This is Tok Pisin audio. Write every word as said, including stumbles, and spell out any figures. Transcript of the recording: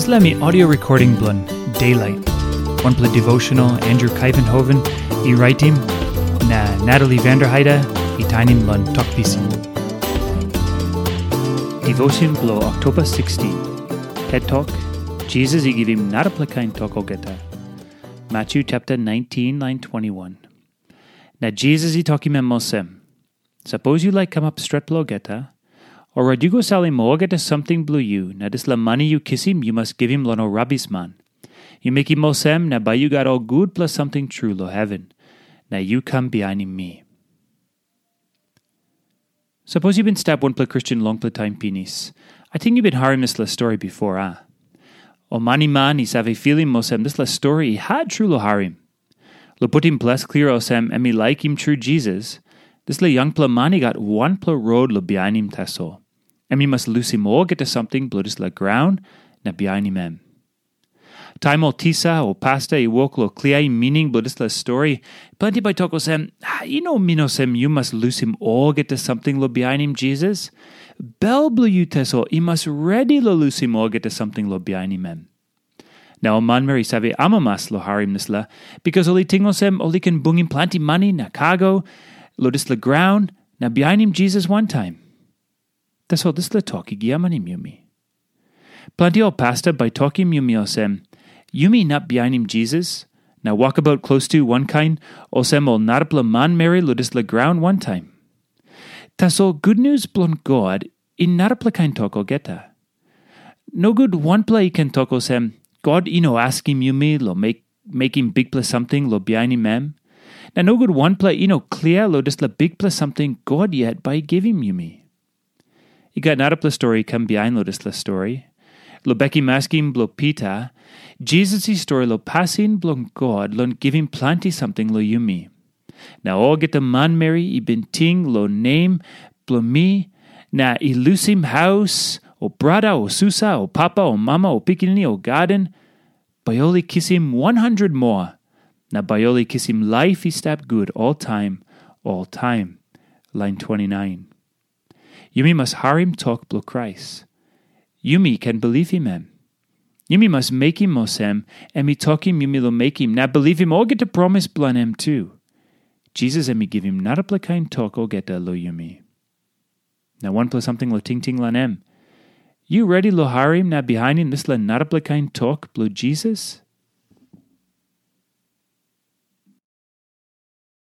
Dispela mi audio recording bilong Daylight, wanpela devotional Andrew Kaivenhoven i raitim, na Natalie Vanderheide i tainim long Tok Pisin. Devotion bilong Oktoba sixteen. Het tok, Jisas i givim narapela kain tok olgeta. Matthew chapter nineteen, line twenty-one. Na Jisas i tokim em olsem, "Sapos yu laik kamap stretpela olgeta, orait yu go salim olgeta samting bilong yu, na dispela mani yu kisim yu mas givim long ol rabisman. Yu mekim olsem, na bai yu gat ol gutpela samting tru long heven, na yu kam bihainim mi." Sapos yu bin stap wanpela Kristen longpela taim pinis, ating yu bin harim dispela stori bipo, a? Ol maniman i save filim olsem dispela stori i hat tru long harim. Long putim ples klia olsem em i laikim tru Jisas, dispela yangpela man i gat wanpela rot long bihainim tasol. Em i mas lusim olgeta samting bilong dispela graun na bihainim em. Taim ol tisa o pasta i wok long kliaim mining bilong dispela stori, planti bai tok olsem, "Ah, i no min olsem yu mas lusim olgeta samting long bihainim Jisas. Bel bilong yu tasol i mas redi long lusim olgeta samting long bihainim em." Na ol manmeri i save amamas long harim dispela, bikas ol i ting olsem ol i ken bungim planti mani na kago long dispela graun na bihainim Jisas wantaim. Tasol dispela tok i giamanim yumi. Planti ol pasta bai tokim yumi olsem, "Yumi inap bihainim Jisas, na wokabaut klostu wankain olsem ol narapela manmeri long dispela graun wantaim." Tasol gutnius bilong God i narapela kain tok olgeta. Nogut wanpela i ken tok olsem, "God i no askim yumi long mek, mekim bikpela samting long bihainim em." Na nogut wanpela i no klia long dispela bikpela samting God yet bai i givim yumi. I gat narapela stori i kam bihain long dispela stori. Long bekim askim bilong Pita, Jisas i stori long pasin bilong God long givim planti samting long yumi. Na olgeta manmeri i bin ting long nem bilong mi, na i lusim haus, o brata, o susa, o papa, o mama, o pikinini, o gaden, bai ol i kisim wan handret moa, na bai ol i kisim laip i stap gut oltaim, oltaim. Lain twenty-nine. Yumi mas harim tok bilong Krais. Yumi ken bilipim em. Yumi mas mekim olsem em i tokim yumi long mekim, na bilipim olgeta promis bilong em tu. Jisas em i givim narapela kain tok olgeta long yumi. Na wanpela samting long tingting long em. Yu redi long harim na bihainim dispela narapela kain tok bilong Jisas?